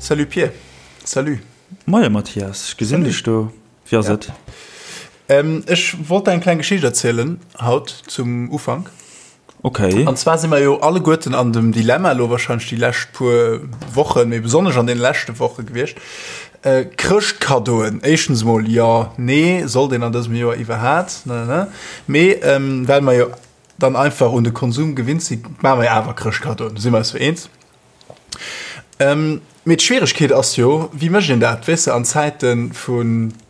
Salut Pir. Salut. Moie Mathias, ech gesinn dech do. Wéi ass et? Ech wollt der eng kleng Geschicht erzielen haut zum Ufank. Okay. An zwar si mer jo alleguerten an dem Dilemma elo wahrscheinlech déi lescht puer Wochen, mee besonnesch an deene leschte Woche gewiescht, Chrëschtkaddoen. Éischtens emol, jo, nee, sollt een an dësem Joer iwwerhaat, ne, ne. Mee well mer jo dann einfach un de Konsum gewinnt sinn, maache mer jo awer Chrëschtkaddoen, do si mer eis jo eens. Mee d'Schwieregkeet ass jo, wéi mécht een dat, weess de, an Zäite vu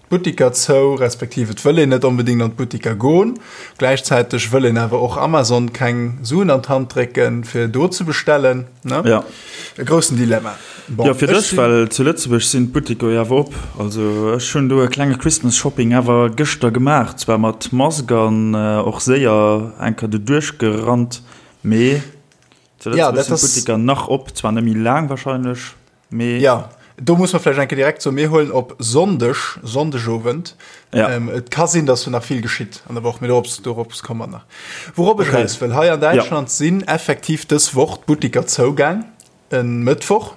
Buttiker zou, respektiv et wëll een net onbedéngt an d'Buttiker goen, gläichzäiteg wëll een awer och Amazon keng Suen an d'Hand drécken, fir do ze bestellen, ne? Ja. E groussen Dilemma. Bon, Jo, fir dech, well zu Lëtzebuerg sinn d'Buttiker jo awer op. Also ech hunn do e klenge Christmas Shopping awer gëschter gemaach, zwar mat Mask an och séier eng Kéier do duerchgerannt, mee Zu Ja, Lëtzebuerg dat sinn ass. d'Butteker nach op, zwar net méi laang wahrscheinlech, mee. Ja, do muss mer vläicht eng Kéier direkt soen, mir huelen op Sonndeg, Sonndegowend. Ja. Ähm, et ka sinn, dass do nach vill geschitt an der Woch, mee dorops, dorops komme mer nach. Wourop ech Okay. eraus wëll, hei an Ja. Däitschland sinn effektiv dës Woch d'Butteker zougaang, e Mëttwoch.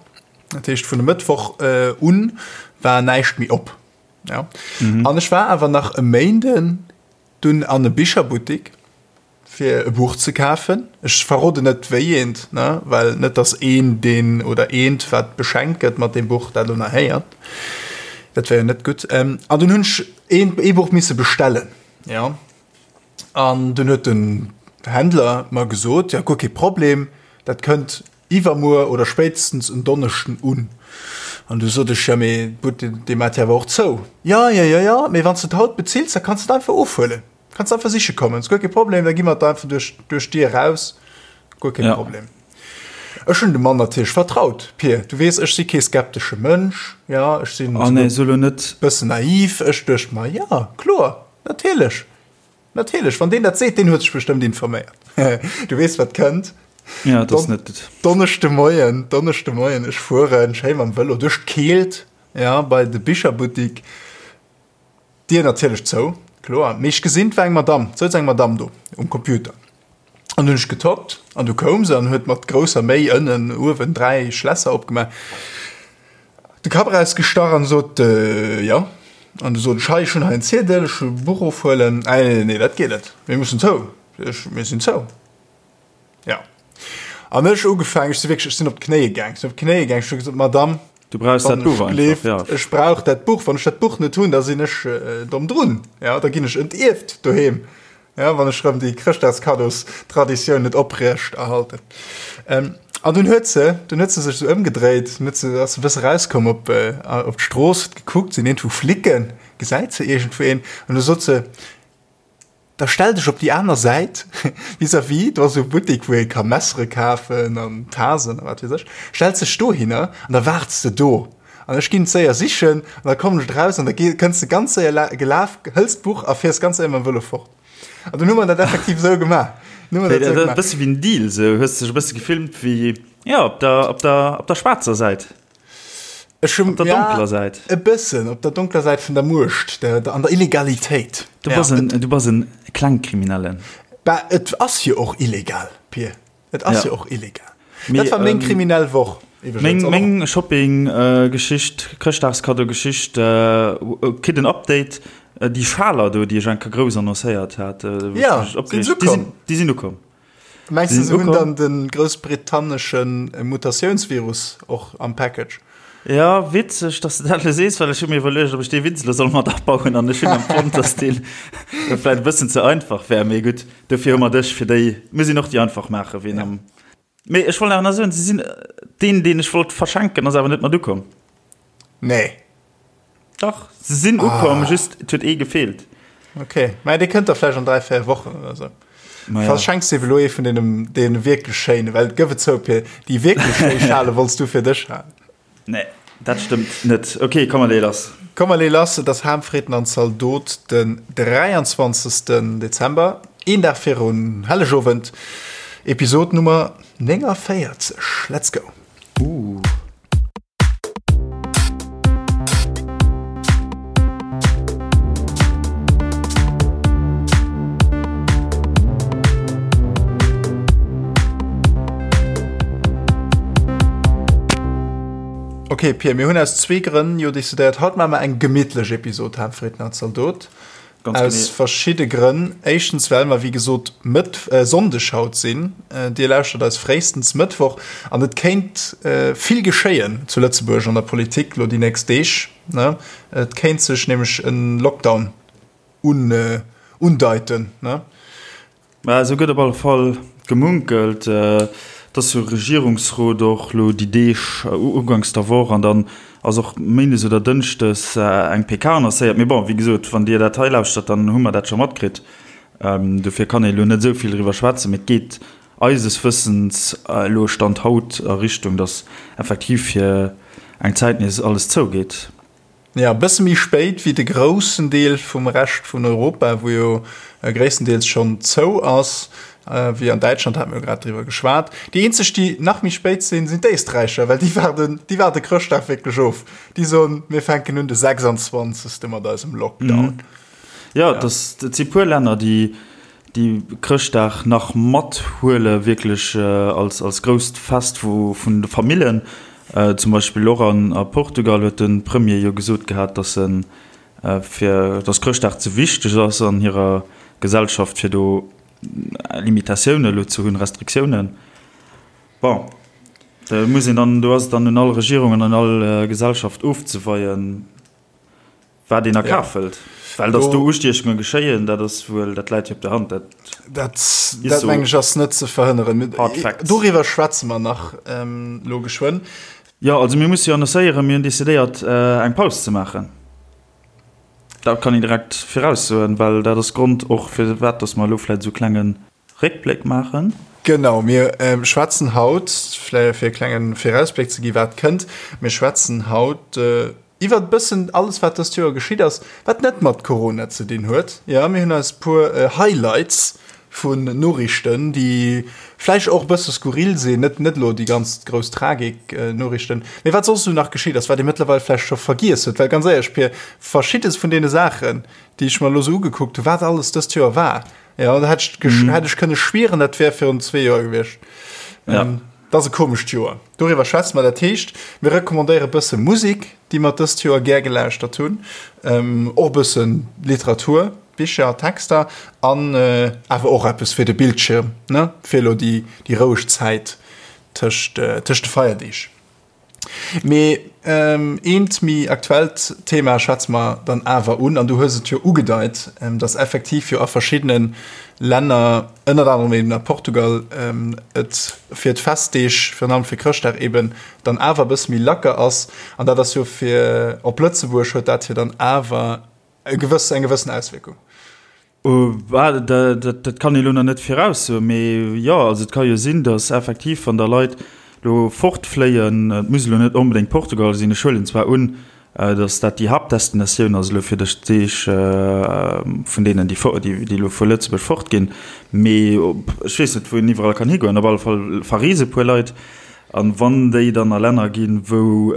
Dat heescht, vun e Mëttwoch un war näischt méi op. Ja. An ech war awer nach e Méinden dunn an e Bicherbuttek. fir e Buch ze kafen. Ech verroden net wéi eent, ne, well net dass een deen oder eent wat beschenkt gëtt mat deem Buch dat elo nach héiert. Dat wär jo net gutt. An dunn hunn ech een ee Buch misse bestellen, jo. An dunn huet den Händler mer gesot, jo guer kee Problem, dat kënnt iwwermuer oder spéitstens en Donneschden un. An du sot ech, jo mee d'Buttek dee mat jo awer och zou. Jo, jo, jo, jo, mee wann s de et haut bezills, da kanns de et einfach ofhuelen. Kanns einfach siche kommen, ass guer kee Problem, da gi mer et einfach duerch, duerch d'Dier raus, guer kee Ja. Problem. Ech hunn dem Mann natierlech vertraut, Pir, du weess, ech si kee skeptesche Mënsch, ja, ech sinn Oh nee, so lo net. bëssen naiv, ech duecht mer, ja, kloer, natierlech, natierlech, wann deen dat seet, deen huet sech bestëmmt informéiert. Du weess, wat kënnt. Ja, dat ass net. Donneschde Moien, Donneschde Moien, ech fueren schéi mam Vëlo duerch d'Keelt, ja, bei de Bicherbuttik. D'Dier natierlech zou, kloer, mee ech gesinn, 't war eng Madamm, 't souz eng Madamm do um Computer. An hunn ech getoppt an du koum se an huet mat grousser Méi ënnen, uewen 3 Schlässer opgemaach, de Kapp erausgestach an sot, Jo. An du sot ech, Hei, ech hunn hei en Ziedel, ech wëll e Buch ofhuelen. Ah, nee, nee, dat geet net, mir mussen zou, ech, mir sinn zou. Ja. An ech ugefaangen, ech si wierklech, ech sinn op d'Knéie gaang, ech sinn op d'Knéie gaang, ech hu gesot, Madame, Du brauchs dat wann Buch ech einfach, gleeft, ja. ech brauch dat Buch, wann ech dat Buch net hunn, da sinn ech äh, domm drun, ja, da ginn ech entierft doheem, ja, wann ech rëm déi Chrëschtdagskaddos-Traditioun net oprecht erhalten. Ähm, an dunn huet se, dunn huet se sech esou ëmgedréit, dunn huet se, ass se e bësse rauskomm op, äh, op d'Strooss, huet gekuckt, sinn iergendwou Flicken, gesäit se iergendwou een, an du sot se, Da stell dech op déi aner Säit, vis-à-vis, do ass esou e Buttek, wou ee ka Messere kafen an Tasen a wat weess ech. Stells dech dohinner an da waarts de do. An ech ginn et séier sichen an da kommen ech eraus an da kënns de ganz séier gelaf, hëls d'Buch a fiers ganz séier mam Vëlo fort. An dunn hu mer dat effektiv esou gemaach. Dunn hu mer dat esou E gemaach. bësse wéi en Deal, esou hues de dech e bësse gefilmt wéi, jo, op der, op der, op der schwaarzer Säit. Ech hun, Op der ja, donkeler Säit. E bëssen, op der donkeler Säit vun der Muecht, der, der, an der Illegalitéit. Du bass en, du bass en Klengkriminellen. Bah, et ass jo och illegal, Pir. Et ass Ja. jo och illegal. Mee, Dat war meng ähm, kriminell Woch, iwwregens. Meng, An och- meng Shopping-Geschicht, Chrëschtdagskaddo-Geschicht, äh, kritt en Update. Déi Schaler do, déi ech eng Kéier grouss annoncéiert hat, wou ech Ja, mech sinn opgereegt, se déi sinn, ukomm? déi sinn ukomm. Mengs du, Sinn se hunn ukomm. dann de groussbritannesche Mutatiounsvirus och am Package? Ja, witzeg, dass de dat elo sees, well ech hu mir iwwerluecht, ob ech dee Witz elo soll mat abauen an ech hunn empfonnt, dass deen vläicht e bëssen ze einfach wär. Mee gutt, dofir hu mer dech, fir déi, mir sinn och déi einfach maachen, ween am. Mee ech wollt awer nach soen, se sinn, deen, deen ech wollt verschenken, ass awer net mat ukomm. Nee. Dach, se sinn ukomm, just et huet ee gefeelt. Ok, mä dee kënnt da vläicht an 3, 4 Wochen oder sou. Ma ja. Verschenks de elo ee vun deenen, deene wierklech schéinen, well gëff et zou, Pir, déi wierklech schéi Schale wollts du fir dech halen. Nee, dat stëmmt net. Ok, komm mer lee lass. Komm mer lee lass, et ass Ham, Fritten an Zaldot den 23. Dezember, een Dag virun Hellegowend, Episod Nummer 49. Let's go! Ooh. Ok Pir, mir hunn aus zwee Grënn jo decidéiert, haut maache mer eng gemittlech Episod Haaptfriedner Zaldot. Ganz Aus genee. verschidde Grënn. Éischtens well mer wéi gesot Mëtt Sonndeg haut sinn. Dir lauschtert eis fréistens Mëttwoch an et kéint vill geschéien zu Lëtzebuerg an der Politik lo déi nächst Deeg, ne? Et kéint sech nämlech e Lockdown un undeiten, ne? Mä esou gëtt op alle Fall gemunkelt. Et ass jo Regierungsrot och elo déi Deeg, uganks der Woch, an dann ass och méindes oder dënschdes eng PK annoncéiert. Mee bon, wéi gesot, wann Dir dat hei lauschtert, dann hu mer dat scho matkritt. Dofir kann ee elo net esou vill driwwer schwätzen. Mee et geet eises Wëssens elo, Stand haut, a Richtung, datt effektiv fir eng Zäit nees alles zougeet. Jo, e bësse méi spéit wéi de groussen Deel vum Rescht vun Europa, wou jo gréisstendeels schonn zou ass, wéi an Däitschland, hate mir jo grad driwwer geschwat. Déi eenzeg, déi nach méi spéit sinn, sinn d'Éisträicher, well déi waarden, déi waarde Chrëschtdag wierklech of. Déi soen, mir fänken un de 26. mat eisem Lockdown. Jo, et ass, et si puer Länner, déi déi Chrëschtdag nach mathuele wierklech als als grousst Fest vu vun de Famillen. Zum Beispill och an a Portugal huet de Premier jo gesot gehat, datt en fir datt Chrëschtdag ze wichteg ass an hirer Gesellschaft fir do Limitatioune elo ze hunn, Restriktiounen. Bon, do muss een dann, do ass et dann un all Regierung an un all Gesellschaft ofzeweien. Wat een a Kaf hëlt. Well datt do Ustiechunge geschéien, dat ass wuel, dat läit jo op der Hand. Dat, dat meng ech ass net ze verhënneren. Hard facts. Doriwwer schwätze mer nach elo geschwënn. Jo, also mir musse jo annoncéieren, mir hunn decidéiert eng Paus ze maachen. Dat kann een direkt viraussoen, well dat ass Grond och firwat datt mer elo vläicht esou klenge Réckbléck maachen. Genau, mir schwätzen haut, vläicht fir e klenge Virausbléck ze gi wat kënnt, mir schwätzen haut iwwert e bëssen alles wat dëst Joer geschitt ass, wat net mat Corona ze dinn huet. Jo, mir hunn eis e puer Highlights vun Noriichten, déi vläicht och e bësse skurril sinn, net net elo déi ganz grouss Tragik Noriichten, mee wat soss esou nach geschitt ass, wat ee mëttlerweil vläicht scho vergiess huet. Well ganz éierlech, Pir, verschiddes vun deene Saachen, déi ech mer elo esou ugekuckt hunn, wat alles dëst Joer war, Ja, da hätt ech, mm. hätt ech kënne schwieren, dat wär virun zwee Joer gewiescht. Ja. Ähm, dat ass e komescht Joer. Doriwwer schwätze mer. Dat heescht, mir recommandéiere bësse Musik, déi mer dëst Joer gär gelauschtert hunn, ähm, och bësse Literatur, Bicher, Texter an äh, awer och eppes fir de Bildschirm, ne? Fir elo déi, déi roueg Zäit tëscht, äh, tëscht de Feierdeeg. Mee eent méi aktuellt Thema schwätze mer dann awer un, an du hues et jo ugedeit, dass effektiv jo a verschiddene Länner, ënnert anerem eben a Portugal, et fir d'Festdeeg, virun allem fir Chrëschtdag eben, dann awer e bësse méi lacker ass. An dat ass jo fir op Lëtzebuerg huet dat jo dann awer e gewëss, eng gewëssen Auswierkung. Dat kann ee lo nach net viraussoen, mee jo, also et ka jo sinn, datt effektiv, wann da Leit lo fortfléien, et muss elo net onbedéngt Portugal sinn, ech huelen zwar un, datt dat déi Haaptdestinatioun ass elo fir dës Deeg vun deenen, déi elo vu Lëtzebuerg fortginn, mee ech weess net, wou een iwwerall kann higoen. Op alle Fall verreese puer Leit, an wann déi dann a Länner ginn, wou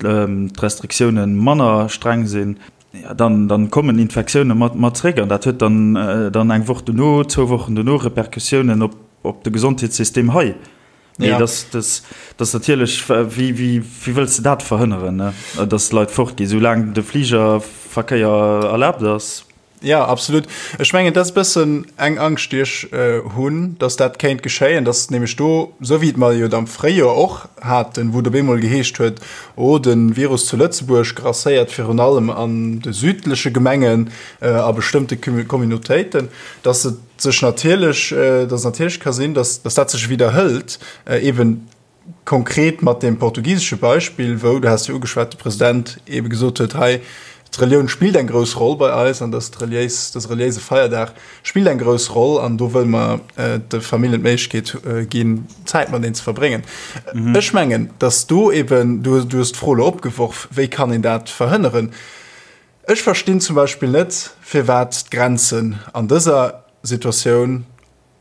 d'Restriktioune manner streng sinn, Ja, dann, dann kommen Infektioune mat, mat zréck an dat huet dann, dann eng Woch dono, zwou Wochen dono Repercussiounen op, op de Gesondheetssystem hei. Mee Ja. das, das, das natierlech, wéi, wéi, wéi wëlls de dat verhënneren, ne? Dass d'Leit fortginn, soulaang de Fligerverkéier erlaabt ass. Ja, absolut. Ech mengen, dat ass e bëssen eng Angscht, déi ech hunn, dass dat kéint geschéien, dass nämlech do, esou wéi et mer jo am Fréijoer och haten, wou et op eemol geheescht huet, oh, de Virus zu Lëtzebuerg grasséiert virun allem an de südleche Gemengen, a bestëmmte Communautéiten, dass et sech natierlech, dass et natierlech ka sinn, dass dat sech widderhëlt, eeben Konkret mat deem portugisesche Beispill, wou, du has jo ugeschwat, de President eebe gesot huet, hei, d'Relioun spillt eng grouss Roll bei eis an dass d'reliéis, dëse reliéise Feierdag spillt eng grouss Roll an do wëlle mer de Familljen d'Méiglechkeet ginn, Zäit mateneen ze verbréngen. Ech mengen, dass do eeben, du hues d'Fro elo opgeworf, wéi kann een dat verhënneren? Ech verstinn zum Beispill net, firwat d'Grenzen an dëser Situatioun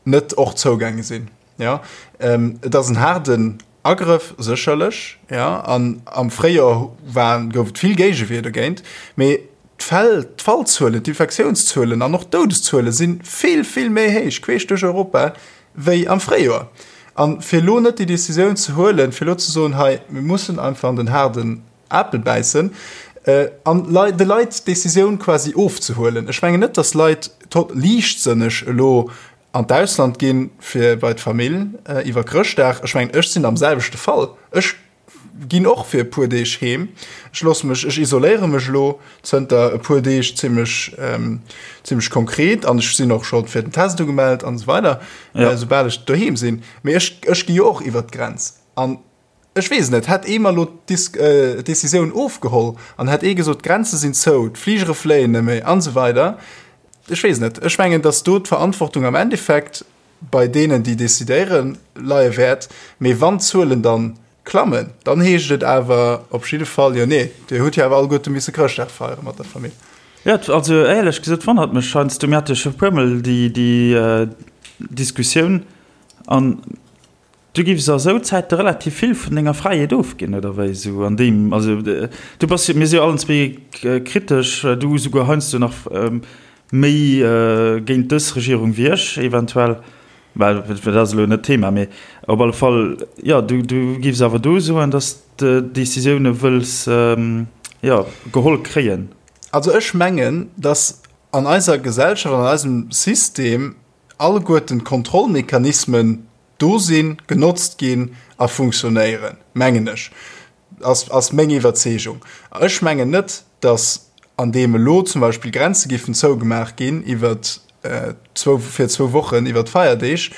net och zougaange sinn. Jo, et ass en haarden Agrëff sécherlech, jo, an am Fréijoer war, gouf et vill Géigewier dogéint, mee d'Fäll, d'Fallzuelen, d'Infektiounszuelen an och d'Doudeszuele si vill, vill méi héich queesch duerch Europa wéi am Fréijoer. An fir elo net déi Decisioun ze huelen, fir elo ze soen, hei, mir mussen einfach an den haarden Apel bäissen an de Leit d'Decisioun quasi ofzehuelen. Ech mengen net, datt Leit liichtsënneg elo an d'Ausland ginn, fir bei d'Famill iwwer Chrëschtdag. Ech mengen, ech sinn am selwechte Fall. Ech ginn och fir e puer Deeg heem. Ech loosse mech, ech isoléiere mech elo zënter e puer Deeg zimmlech, zimmlech konkret an ech sinn och scho fir den Test ugemellt an esou weider, soubal ech doheem sinn. Mee ech, ech gi jo och iwwert d'Grenz. An Ech weess et net. Hätt ee mer elo d'Decisioun ofgeholl an hätt ee gesot, d'Grenze sinn zou, d'Fligere fléien net méi an esou weider, ech weess et net. Ech mengen, datt do d'Verantwortung am Endeffekt bei deenen, déi decidéieren, leie wäert. Mee wann d'Zuelen dann klammen, dann heescht et awer op jidde Fall, jo nee, Dir hutt jo awer alleguerte misse Chrëschtdag feiere mat der Famill. Jo, also éierlech gesot wonnert mech heiansdo, mir hate scho e puermol déi Diskussioun an Du giffs a sou Zäite relativ vill vun denger Fräiheet ofginn, oder wéi? Sou an deem, also du bass jo, mir si jo allen zwee kritesch, du souguer heiansdo nach méi géint dës Regierung wéi ech eventuell, well dat ass elo net d'Thema, mee op alle Fall, jo, du du giffs awer do soen, datt s de Decisioune wëlls, jo, geholl kréien. Also ech mengen, datt an eiser Gesellschaft, an eisem System alleguerten d'Kontrollmechanismen do sinn, genotzt ginn a funktionéieren, mengen ech, ass, ass meng Iwwerzeegung. Ech mengen net, datt an deem elo zum Beispill Grenze giffen zougemaach ginn iwwer zwou, fir zwou Wochen iwwer d'Feierdeeg,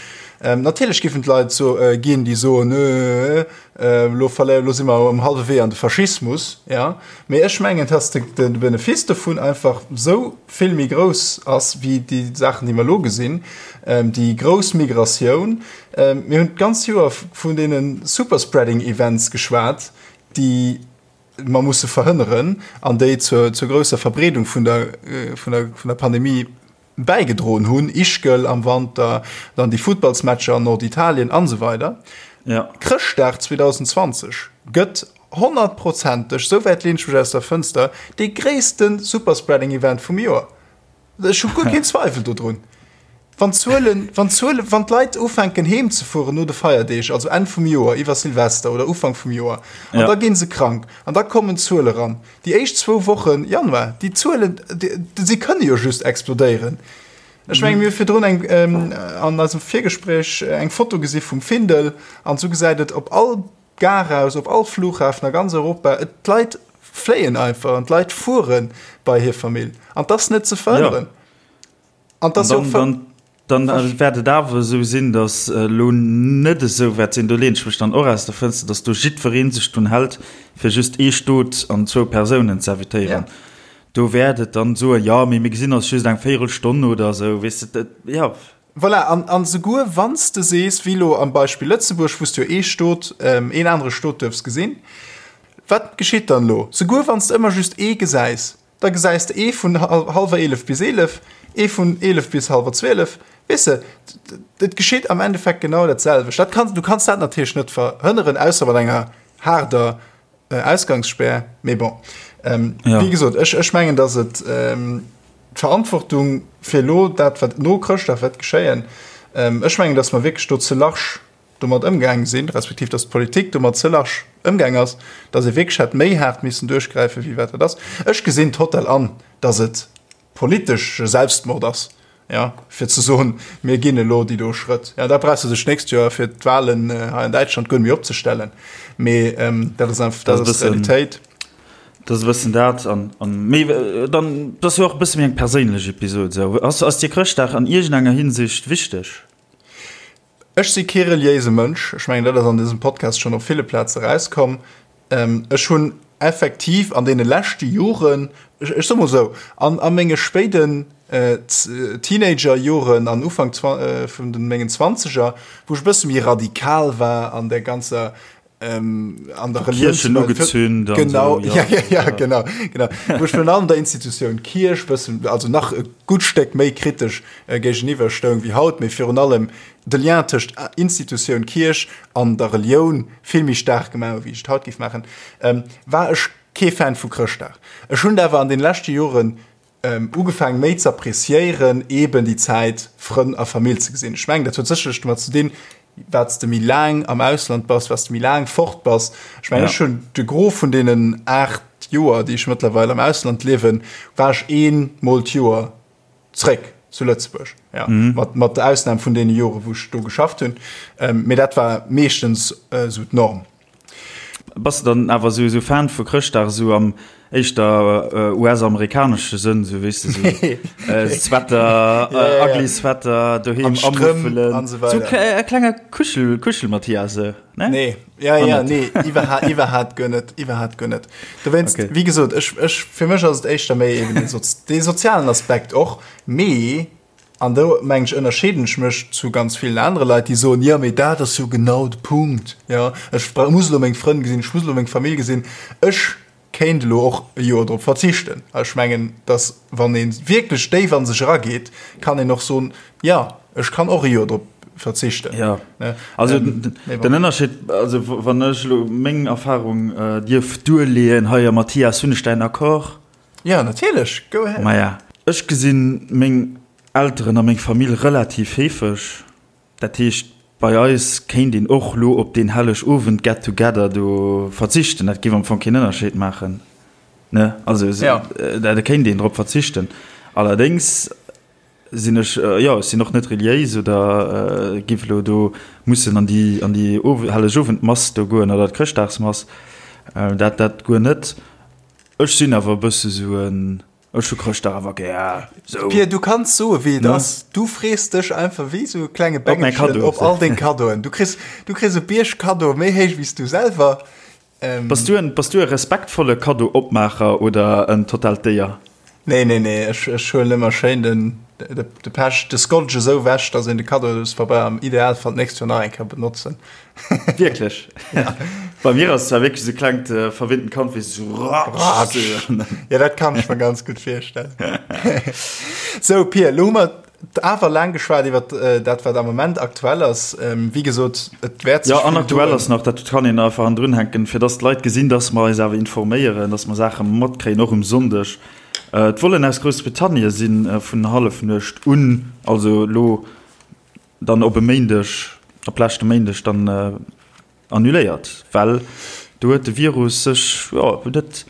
natierlech giffen d'Leit so ginn, déi soen, elo verléiere, elo si mer um hallwe Wee an de Faschismus, jo. Mee ech mengen, datt de, de Benefice dovun einfach esou vill méi grouss ass wéi déi Saachen, déi mer elo gesinn, déi grouss Migratioun. Mir hunn d'ganz Joer vun deene Superspreading-Events geschwat, déi mer musse verhënneren an déi zur, zur grousser Verbreedung vun der, vun der, vun der Pandemie bäigedroen hunn, Ischgl am Wanter, dann déi Futtballsmatcher an Norditalien an esou weider. Ja. Chrëschtdag 2020 gëtt honnertprozenteg, esou wäit leen ech mech aus der Fënster, dee gréisste Superspreading-Event vum Joer. Ech hu guer keen Zweifel dodrun. Wann d'Zuelen, wann d'Zuelen, wann d'Leit ufänken heem ze fueren no de Feierdeeg, also Enn vum Joer, iwwer Silvester oder Ufank vum Joer, an Ja. da gi se krank an da kommen d'Zuele ran. Déi éischt zwou Wochen Januar, déi Zuelen, si kënne jo just explodéieren. Ech menge mir hu virdrun eng an eisem Virgespréich eng Foto gesi vum Findel an esou gesäit et op all Gare aus, op all Flughafen a ganz Europa. Et d'Leit fléien einfach an d'Leit fuere bei hir Famill an 't ass net ze verhënneren. An 't ass jo och. Dann wäert et awer esou sinn, datt elo net esou wäert sinn, do leeën ech mech dann och aus der Fënster, datt do jiddweree sech drun hält, fir just ee Stot an zwou Persounen ze invitéieren. Do wäert et dann soen, jo, mee mir gesinn eis just eng Véierelstonn oder esou, weess de, jo. Voilà, an, an esouguer wann s de sees, wéi elo am Beispill Lëtzebuerg, wou s de jo ee Stot, een anere Stot duerfs gesinn, wat geschitt dann elo? Souguer wann s de ëmmer just ee gesäis, Da gesäis de ee vun hallwer 11 bis 11, ee vun 11 bis hallwer 12. Weess de, et geschitt am Endeffekt genau dat selwecht. Dat kann, du kanns dat natierlech net verhënneren, ausser mat enger haarder Ausgangsspär. Mee bon, wéi gesot, ech, ech mengen, datt et d'Verantwortung fir elo dat, wat no Chrëschtdag wäert geschéien, ech mengen, datt mer wierklech do ze large domat ëmgaang sinn, respektiv datt d'Politik domat ze large ëmgaang ass, datt ee wierklech hätt méi haart missen duerchgräifen, wéi wat dat ass. Ech gesinn total an, datt et politesche Selbstmord ass, jo, fir ze soen, mir ginn elo déi do Schrëtt. Jo, da brauchs de dech d'nächst Joer fir d'Wahlen hei an Däitschland guer net méi opzestellen. Mee dat ass einfach, dat ass d'Realitéit. Dat ass e bëssen dat. An, an, mee dann, dat ass jo och e bësse méi eng perséinlech Episod esou. Ass, ass dir Chrëschtdag an iergendenger Hinsicht wichteg? Ech si kee reliéise Mënsch, ech mengen dat ass an dësem Podcast schonn op ville Plaze erauskomm. Ech hunn effektiv an deene leschte Joren, ech soe mol esou, an a menge spéiden Teenagerjoren an Ufank vun de mengen Zwanzeger, wou ech e bësse méi radikal war an der ganzer an der Kirchen ugezünd genau so, ja. Ja, ja, ja, genau genau wo ich an der Institution Kirch bëssen also nach e gut Steck méi kritesch äh, géigeniwwer stoung wie haut méi virun allem de Lien tëscht äh, Institution Kirch an der Relioun vill méi stark gemaach wie ich haut giff machen ähm, war ech kee Fan vu Chrëschtdag. Ech hunn awer an den leschte Joren ähm, ugefaangen méi ze appreciéieren eben déi Zäit Frënn a Famill ze gesinn. Ech mengen dat huet sécherlech domat ze dinn. Wat s de méi laang am Ausland bass, wat s de méi laang fort bass. Ech mengen, ech hunn de Gros vun deenen 8 Joer, déi ech mëttlerweil am Ausland liewen, war ech ee Mol d'Joer zréck zu Lëtzebuerg. Ja, mat, mat der Ausnam vun deene Jore wou ech do geschafft hunn. Mee dat war meeschtens esou d'Norm. Bass de dann awer esou Fan vu Chrëschtdag esou am éischter US-amerikanesche Sënn, esou weess de, esou Sweater, ugly Sweater, doheem amuffelen, esou e klenge Kuschel, Kuschel-Mathias, ne? Nee, ja, ja, nee, iwwerhaapt guer net, iwwerhaapt guer net. Dowéinst, wéi gesot, ech, ech, fir mech ass et éischter méi eben dee sozialen Aspekt och, mee An do, mengen ech, ënnerscheeden ech mech zu ganz villen anere Leit, déi soen, jo, mee dat ass jo genau de Punkt, jo, ech muss elo meng Frënn gesinn, ech muss elo meng Famill gesinn, ech kéint elo och e Joer drop verzichten. A ech mengen, dass, wann ee wierklech déif a sech erageet, kann een och soen, jo, ech kann och e Joer drop verzichten. Jo, also den Ënnerscheed, also wann ech elo meng Erfahrung dierf duerleeën hei, a Mathias, hunn ech däin Accord? Ja, natierlech, go ahead. Maja, ech gesinn meng Elteren a meng Famill relativ heefeg. Dat heescht, bei eis kéint een och lo op deen Hellegowend Get Together do verzichten. Dat géif am Fong keen Ënnerscheed maachen, ne? Also, da kéint een drop verzichten. Allerdéngs sinn ech, jo, ech sinn och net reliéis oder giff elo do mussen an déi, an déi Hellegowendmass do goen oder d'Chrëschtdagsmass. Dat, dat guer net. Ech sinn awer e bësse sou en, ech hu Chrëschtdag awer gär, sou. Pir, du kanns soe wéi et ass, du frees dech einfach wéi sou e klenge Bengelchen op all deng Kaddoen. Du kriss, du kriss e Bierg Kaddoe méi héich wéi s du selwer. Bass du en, bass du e respektvolle Kaddo-Opmaacher oder en totaalt Déier? Nee, nee, nee, ech, ech huelen ëmmer schéin den, de, de Pech, de Scotch esou wech, dass een de Kaddospabeir am Idealfall d'nächst Joer nach eng Kéier benotzen. Wierklech? Ja. Bei mir ass zwar wierklech sou klengt äh, verwinnten Kand wéi so ratsch. Ja, dat kann ech mir ganz gut virstellen. so Pir, lo hu mer awer laang geschwat iwwer äh, dat wat am Moment aktuell ass. Ähm, wéi gesot, et wäert sech Ja, an aktuell ass nach, dat kann een einfach an drun hänken, fir dass d'Leit gesinn, dass mer eis awer informéieren, dass mer Saache matkréien, och um Sonndeg. Äh, d'Vollen aus Groussbritannien sinn äh, vun Hallefnuecht un, also lo dann op e Méindeg, op leschte Méindeg dann annuléiert, well do huet de Virus sech, jo, huet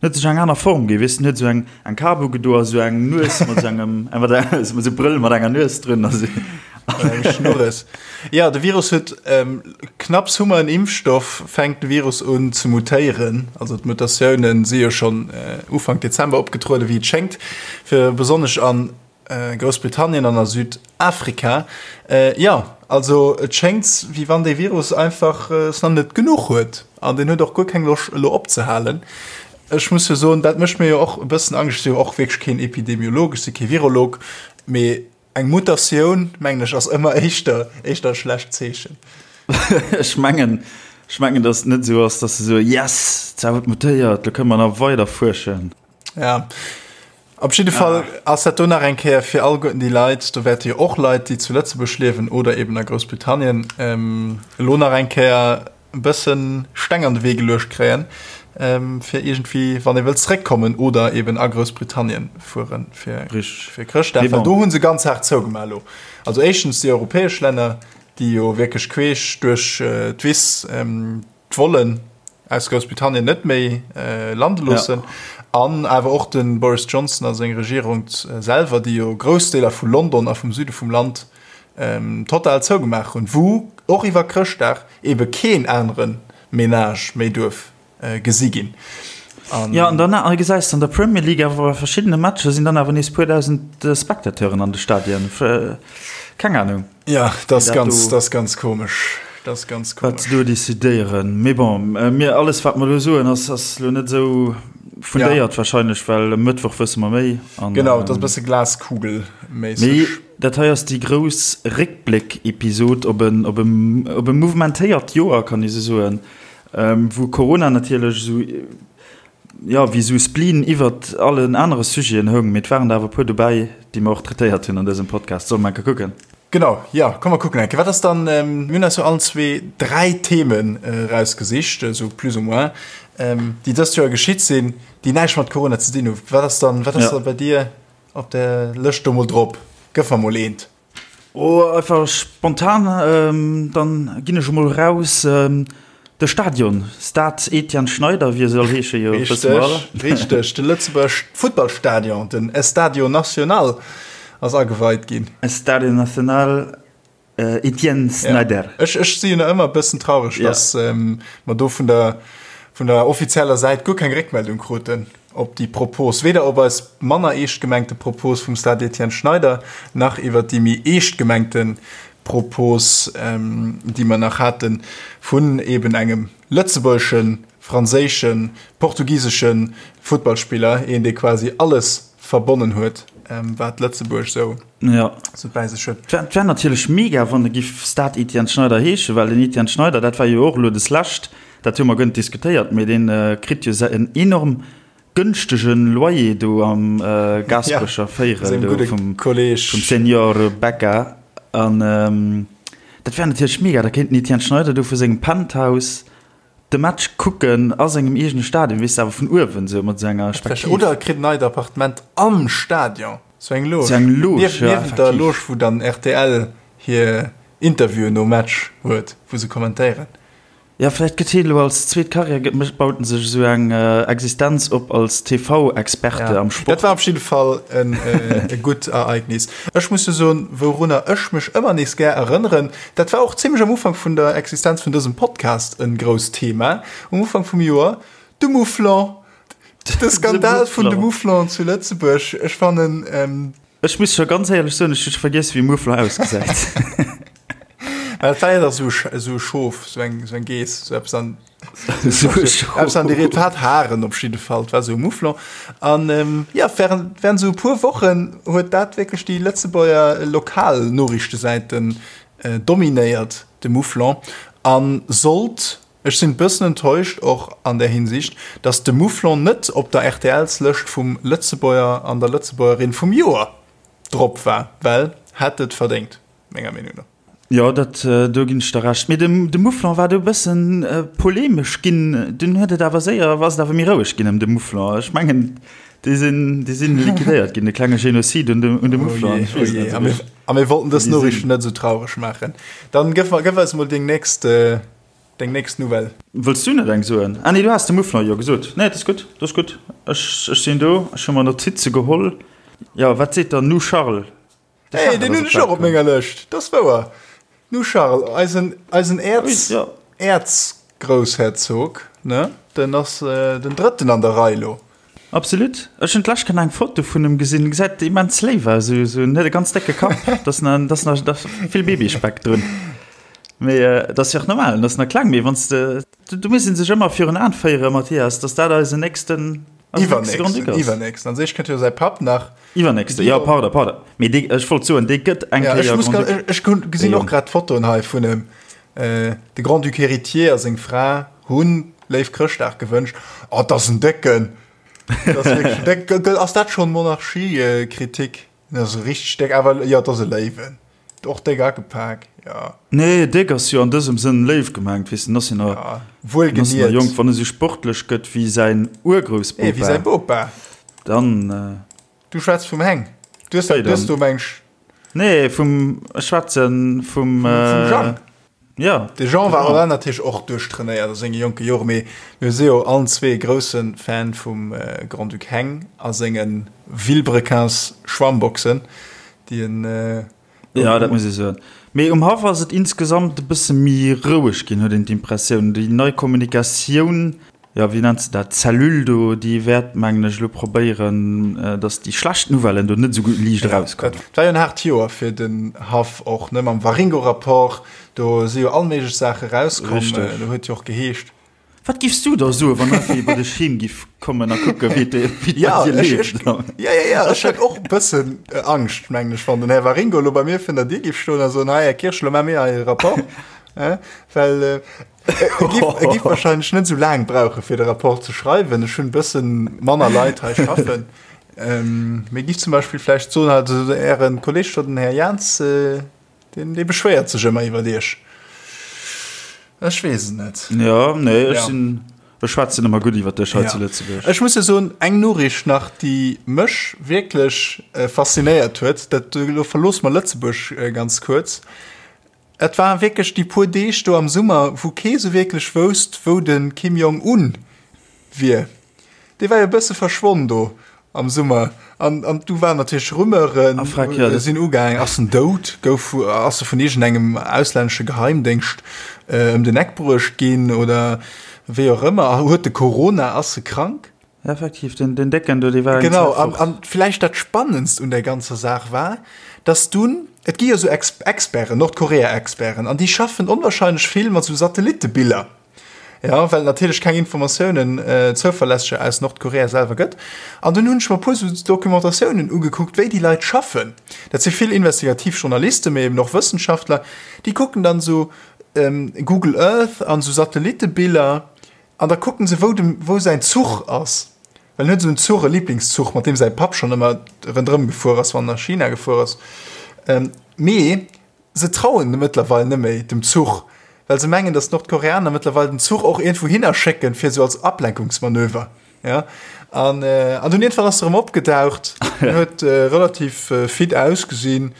huet sech eng aner Form ginn, weess de, en huet esou eng eng Kap ugedo a sou eng Nues mat sou engem, mat sou Brëll mat enger Nues drun a sou. Eng Schnurres. Jo, de Virus huet, knapps hu mer en Impfstoff, fänkt de Virus un ze mutéieren. Also d'Mutatiounen si jo schonn Ufank Dezember opgetrueden, wéi et schéngt, fir besonnesch an Groussbritannien an a Südafrika. Jo, also et schéngt, wéi wann dee Virus einfach es nach net genuch huet an deen huet och guer keng Loscht elo opzehalen. Ech muss jo soen, dat mécht mir jo och e bëssen Angscht. Ech si jo och wierklech keen Epidemiolog, ech si kee Virolog, mee eng Mutatioun, mengen ech, ass ëmmer éischter éischter e schlecht Zeechen. Ech mengen, ech mengen, datt et net esou ass, datt se soen, Yes, zwar huet mutéiert, lo kënne mer nach weider fuerschen. Ja. Op jidde Fall ass dat do nach eng Kéier fir alleguerten déi Leit, do wäerte jo och Leit, déi zu Lëtzebuerg liewen oder eben a Groussbritannien, elo nach eng Kéier e bësse Steng an de Wee geluecht kréien, fir iergendwéi, wann ee wëllt zeréckkommen oder eben a Groussbritannien fuere fir Chrëschtdag, well do hu se ganz haart zougemaach elo. Also éischtens déi europäesch Länner, déi jo wierklech queesch duerch d'Wiss, d'Vollen aus Groussbritannien net méi lande loossen an awer och de Boris Johnson a seng Regierung selwer, déi jo grouss Deeler vu London a vum Süde vum Land total zougemaach hunn, wou och iwwer Chrëschtdag ebe keen anere Menage méi duerf gesi ginn. Jo, an dann gesäis de an der Premier League awer bei verschiddene Matcher sinn dann awer nees puer dausend Spectateuren an de Stadien. Keng Anung. Ja, dat ass ganz, dat ass ganz komesch. Dat ass ganz komesch. Wat se do decidéieren. Mee bon, mir, alles wat mer elo soen, ass, ass elo net esou fundéiert ja. wahrscheinlech, well e Mëttwoch wësse mer méi. An, genau, dat ass e bësse Glaskugelméisseg. Mee dat hei ass déi grouss Réckbléck-Episod op en, op e, op e mouvementéiert Joer, kann ee sou soen, wou Corona natierlech esou, jo, wéi esou Spleen iwwert allen anere Sujeten houng, mee et waren der awer e puer dobäi, déi mer och traitéiert hunn an dësem Podcast. Solle mer enke kucken? Genau, jo, komm mer kucken enke. Wat ass dann, mir hunn eis jo allen zwee 3 Themen erausgesicht, esou plus ou moins, déi dëst Joer geschitt sinn, déi näischt mat Corona ze dinn hunn. Wat ass dann, wat ass da bei dir op der Lëscht do mol drop? Gëff mer mol eent. Oh, einfach spontan, dann ginn ech emol raus. De Stadion, Stade Etienne Schneider, wéi e soll heesche jo, wësse mer alle. Richteg, richteg, de Lëtzebuerg Futtballstadion, den Estadio Nacional ass ageweit ginn. Estadio Nacional Etienne Snyder. Ja. Ech, ech si jo nach ëmmer e bëssen traureg, ja. dass ähm, mer do vun der, vun der offizieller Säit guer keng Réckmeldung kruten op déi Propos, weder op eis manner eescht gemengte Propos vum Stade Etienne Schneider, nach iwwer déi méi eescht gemengte Propos, ähm, déi mer nach haten, vun eben engem lëtzebuergeschen, franséischen, portugiseschen Futtballspiller, een, dee quasi alles verbonnen huet, ähm, wat Lëtzebuerg sou ja. sou bäi sech huet. Et wär natierlech mega, wann e giff Stade Etienne Schneider heeschen, well den Etienne Schneider, dat war jo och elo deslescht, dat hu mer guer net diskutéiert, mee dee kritt jo en enorm gënschtege Loyer do am Gaasperecher Véierel do vum Senior Becca. An dat wär natierlech mega, da kéint den Etienne Schneider do vu sengem Penthouse de Match kucken a sengem eegene Stadion, weess de, awer vun uewen esou mat esou enger Spektiv. Oder e kritt en neit Appartement am Stadion, sou eng Loge. Sou eng Loge, ja, Niewent der Loge, wou dann rtl hir Interviewen nom Match huet, wou se kommentéieren. Jo, vläicht gëtt hien elo als zweet Karriär, gëtt, mécht, baut en sech esou eng Existenz op als TV-Experte am Sport. Dat war op jidde Fall en e gutt Ereignis. Ech muss jo soen, wourunner ech mech ëmmer nees gär erënneren, dat war och zimlech am Ufank vun der Existenz vun dësem Podcast e grousst Thema, um Ufank vum Joer, de Mouflon, de Skandal vun de Mouflon zu Lëtzebuerg. Ech fannen. Ech muss scho ganz éierlech soen, ech hu scho vergiess, wéi e Mouflon ausgesäit. Mä dat war jo dach esou e Schof, esou eng Geess, esou eppes an. Eppes an déi Ried hat Haren op jidde Fall, et war esou e Mouflon. An ähm, ja, während, während esou e puer Wochen huet dat wierklech déi Lëtzebuerger Lokalnoriichtesäiten äh, dominéiert, de Mouflon. An sollt, ech sinn e bëssen enttäuscht och an där Hinsicht, datt de Mouflon net op der RTLs-Lëscht vum Lëtzebuerger an der Lëtzebuergerin vum Joer drop war, well hätt et verdéngt, menger Meenung no. Jo, dat, do ginn ech der Recht. Mee de Mouflon war do e bëssen polemesch ginn. Dunn huet et awer séier, ass et awer méi roueg ginn ëm de Mouflon. Ech mengen, déi sinn, déi sinn liquidéiert ginn, de klenge Genozid un de, un de Mouflon. Ech weess et net esou richteg. A mir wollten dës Noriichten net esou traureg maachen. Dann gëff, gëff eis emol deng nächst, deng nächst Nouvelle. Wëlls du net eng soen? Ah nee, du has de Mouflon jo gesot. Nee, dat ass gutt, dat ass gutt. Ech, ech sinn do, ech hu mer Notize geholl. Jo, wat seet dann nu Charles? Hey, den hunn ech och op menger Lëscht, dat ass wouer. Nu Charles, eisen, eisen Äerz, ja. Äerzgroussherzog, ne? Den ass äh, den drëtten an der Rei lo. Absolut. Ech hunn d'lescht Kéier eng Foto vun em gesinn, gesäit immens léif aus, esou, esou, en huet e ganz décke Kapp, dat ass na, dat ass na, dat ass vill Babyspeck drun. Mee äh, dat ass jo och normal, en ass nach kleng, mee wann s de, do muss ee sech ëmmer virun Aen féieren, Mathias, dass dat eisen nächsten, eisen nächste Grand-Duc ass. Iwwernächsten, iwwernächsten. An sech kënnt jo säi Papp nach. Iwwernächste, jo, pardon, pardon. Mee dee, ech wollt soen, dee gëtt eng Kéier Grand-Duc. Ja, ech muss, ech gesinn och grad d'Fotoen hei vun em. De Grand-Duc héritier a seng Fra hunn léif Chrëschtdag gewënscht. Oh, dat ass en Décken! Dat ass wierklech en Décken. Ass dat schonn Monarchiekritik? Dat ass e richteg déck, awer jo, dat ass e Léiwen. Och déck agepak, jo. Nee, déck ass jo an dësem Sënn léif gemengt, weess de, en ass jo nach, en ass nach jonk. Wann e sou sportlech gëtt wéi säin Urgroussbopa. Wéi säi Bopa. Dann. Du schwätz vum Heng. Du hues dat, du hues do meng. Nee, vum, ech schwätzen vum. Vum Jean. Ja. De Jean war war natierlech och duerchtrainéiert a senge jonke Jore, mee mir si jo allen zwee grousse Fan vum Grand-Duc Heng a senge Vilebrequins Schwammboxen, déi en. Jo, dat muss ee soen. Mee um Haff ass et insgesamt e bësse méi roueg ginn, huet een d'Impressioun. Déi nei Kommunikatioun, jo, wéi nennt se dat, Cellule do, déi wäert, mengen ech, elo probéieren, datt déi schlecht Nouvellen do net esou gutt liicht erauskommen. Dat war jo en haart Joer fir den Haff och, ne, mam Waringo-Rapport, do si jo all méiglech Saache rauskomm. Do huet jo och geheescht, Wat giffs du da soen, wann einfach ee bei dech heem giff kommen a kucke wéi et bei dir leeft? Ja, ja, ja, ech hätt och e bëssen Angscht, mengen ech, wann den Här Waringo elo bei mir virun der Dier giff stoen a soen, Hei, Här Kirsch, elo maache mir hei e Rapport. Well e giff, e giff wahrscheinlech net esou laang brauche fir de Rapport ze schreiwen. Ech hunn e bësse manner Leit hei schaffen. Mee giff zum Beispill vläicht soen, also Äre Kolleeg do, den Här Jaans, Deen, dee beschwéiert sech ëmmer iwwert iech. Ech weess et net. Jo, nee, ech sinn. Ech schwätzen ëmmer gutt iwwer dech hei zu Lëtzebuerg. Ech muss jo soen, eng Noriicht nach, déi mech wierklech faszinéiert huet, dat, elo verloosse mer Lëtzebuerg ganz kuerz, Et war wierklech déi puer Deeg do am Summer, wou kee sou wierklech wousst, wou de Kim Jong Un wier. Dee war jo e bësse verschwonn do am Summer. An, an du waren natierlech Rumeuren, Ah, freck, ja, sinn ugaangen, ass en dout, gouf, ass e vun iergendengem auslännesche Geheimdéngscht ëm den Eck bruecht ginn oder wéi och ëmmer. Huet de Corona, ass e krank? Effektiv, den, den Décken do, dee war eng Genau, an, an vläicht dat Spannendst un der ganzer Saach war, dass dunn, et gi jo sou Ex Experten, Nordkorea-Experten, an déi schaffen onwahrscheinlech vill mat sou Satellittebiller, ja, well et natierlech keng Informatiounen, zouverlässeger aus Nordkorea selwer gëtt. An dunn hunn ech mer e puer sou Documentatiounen ugekuckt, wéi déi Leit schaffen. Dat si vill investigativ Journalisten, mee eben och Wëssenschaftler, déi kucken dann sou Google Earth an sou Satellittebiller, An da kucken se wou dem wou säin Zuch ass, well en huet esou en Zuch, e Liblingszuch, mat deem säi Papp schonn ëmmer rëndrëm gefuer ass, wann en a China gefuer ass. Mee se trauen mëttlerweil net méi dem Zuch, well se mengen, datt d'Nordkoreaner mëttlerweil den Zuch och iergendwou hinner schécken, fir esou als Ablenkungsmanöver. Ja. An, an dunn iergendwann ass se erëm opgedaucht, huet relativ fit ausgesinn,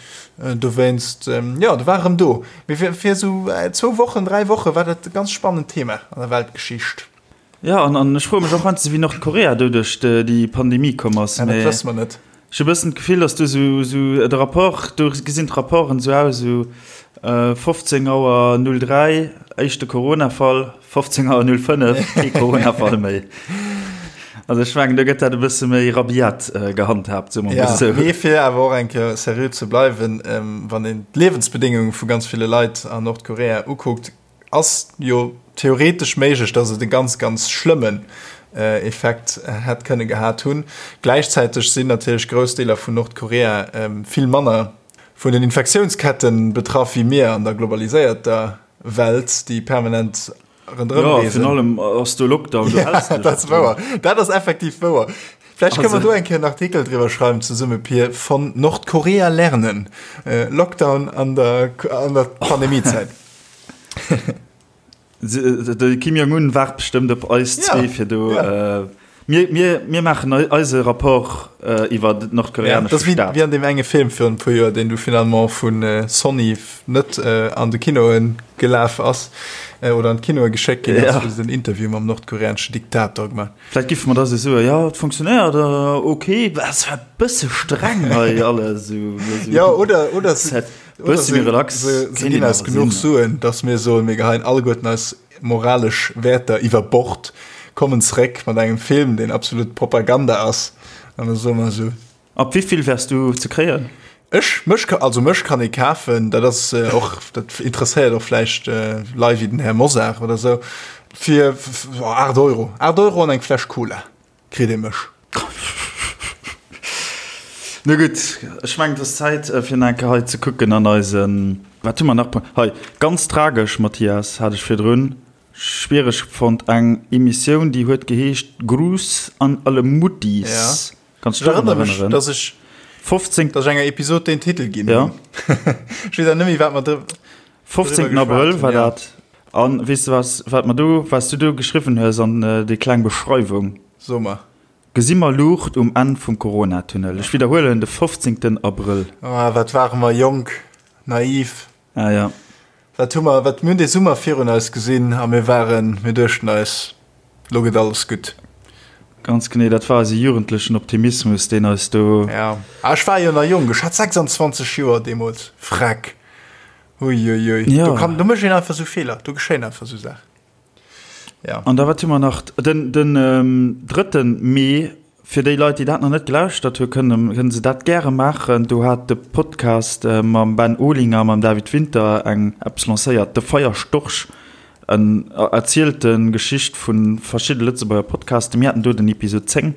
dowéinst, jo, do war erëm do. Mee fir, fir esou zwou Wochen, 3 Woche war dat e ganz spannend Thema an der Weltgeschicht. Jo, an, an ech froe mech och heiansdo, wéi Nordkorea do duerch déi Pandemie komm ass. Ja, dat wësse mer net. Ech hu bëssen d'Gefill, dass do sou, sou de Rapport, do gesinn d'Rapporten sou aus, sou 15 Auer 03, éischte Corona-Fall, 15 Auer 05, kee Corona-Fall méi. Also ech mengen, do gëtt dat e bësse méi rabiat gehandhaabt, soe mer mol esou. Mee fir awer och eng Kéier seriö ze bleiwen, wann een d'Liewensbedéngunge vu ganz ville Leit an Nordkorea ukuckt, Ass jo theoretesch méiglech, dass et e ganz, ganz schlëmmen Effekt hätt kënne gehat hunn. Gläichzäiteg sinn natierlech grouss Deeler vun Nordkorea vill manner vun den Infektiounskette betraff wéi mir an der globaliséierter Welt, déi permanent ronderëm reesen. Jo, virun allem ass do Lockdown, do häls de dech. Dat ass wouer, dat ass effektiv wouer. Vläicht kënne mer do eng Kéier en Artikel driwwer schreiwen zesumme, Pir, Von Nordkorea lernen, Lockdown an der Pandemiezäit. De Kim Jong-un waart bestëmmt op eis zwee fir do. Mir, mir, mir maachen eise Rapport iwwer den nordkoreanesche Staat. Dat ass wéi an deem enge Film virun e puer Joer, deen du finalement vu Sony net an de Kinoe gelaf ass oder an d'Kinoe geschéckt ginn ass, wou se den Interview mam nordkoreaneschen Diktator gemaach. Vläicht giffe mer da sou soen, jo, et funktionéiert, ok, es war e bësse streng hei alles. Jo, oder, oder se. Bësse méi relax. Se ginn eis genuch Suen, datt mir soen, mir geheien alleguerten eis moralesch Wäerter iwwer Bord, kommen zeréck mat engem Film, deen absolut Propaganda ass, an da soe mer esou. Ab wéivill wäers du ze kréien? Ech? Mech, also mech kann ee kafen, dat ass och, dat interesséiert och vläicht Leit wéi den Här Mosar oder esou, fir 8 Euro, 8 Euro an eng Fläsch Cola. Kritt ee mech. No gutt, ech mengen et ass Zäit fir nach eng Kéier hei ze kucken an eisen, wat hu mer nach hei, ganz tragesch, Mathias, hat ech virdrun schwiereg fonnt, eng Emissioun déi huet geheescht Gruß an alle Muttis. Ja. Kanns du dech drun Ech erënnere mech, erënneren? dass ech 15. dass ech enger Episod deen Titel ginn Ja. hunn. Ech weess awer net méi wat mer dr. 15. Abrëll war dat. An weess de was, wat mer do, wat s du do geschriwwen hues an déi kleng Beschreiwung? So mer. Gesi mer Luucht um Enn vum Coronatunnel? Ech widderhuelen, de 15. Abrëll. Ah, wat ware mer jonk, naiv. Ah ja. Wat hu mer, wat, mir hunn dee Summer virun eis gesinn a mir waren, mir duechten eis, lo gëtt alles gutt. Ganz genee, dat war eise jugendlechen Optimismus, deen eis do. Ja, ah, ech war jo nach jonk, ech hat 26 Joer deemools, freck. Uiuiui, ja. do, kann, do mécht een einfach sou Feeler, do geschéien einfach sou Saachen. Ja. An da wat hu mer nach? Den, den ähm, 3. Mee, fir déi Leit, déi dat nach net gelauschtert hu kënnen, kënnen se dat gäre maachen. Do hat de Podcast äh, mam Ben Olinger, mam David Winter eng eppes lancéiert, de Feierstorch, en erzielte Geschicht vu verschidde Lëtzebuerger Podcasten. Mir haten do den Episod 10.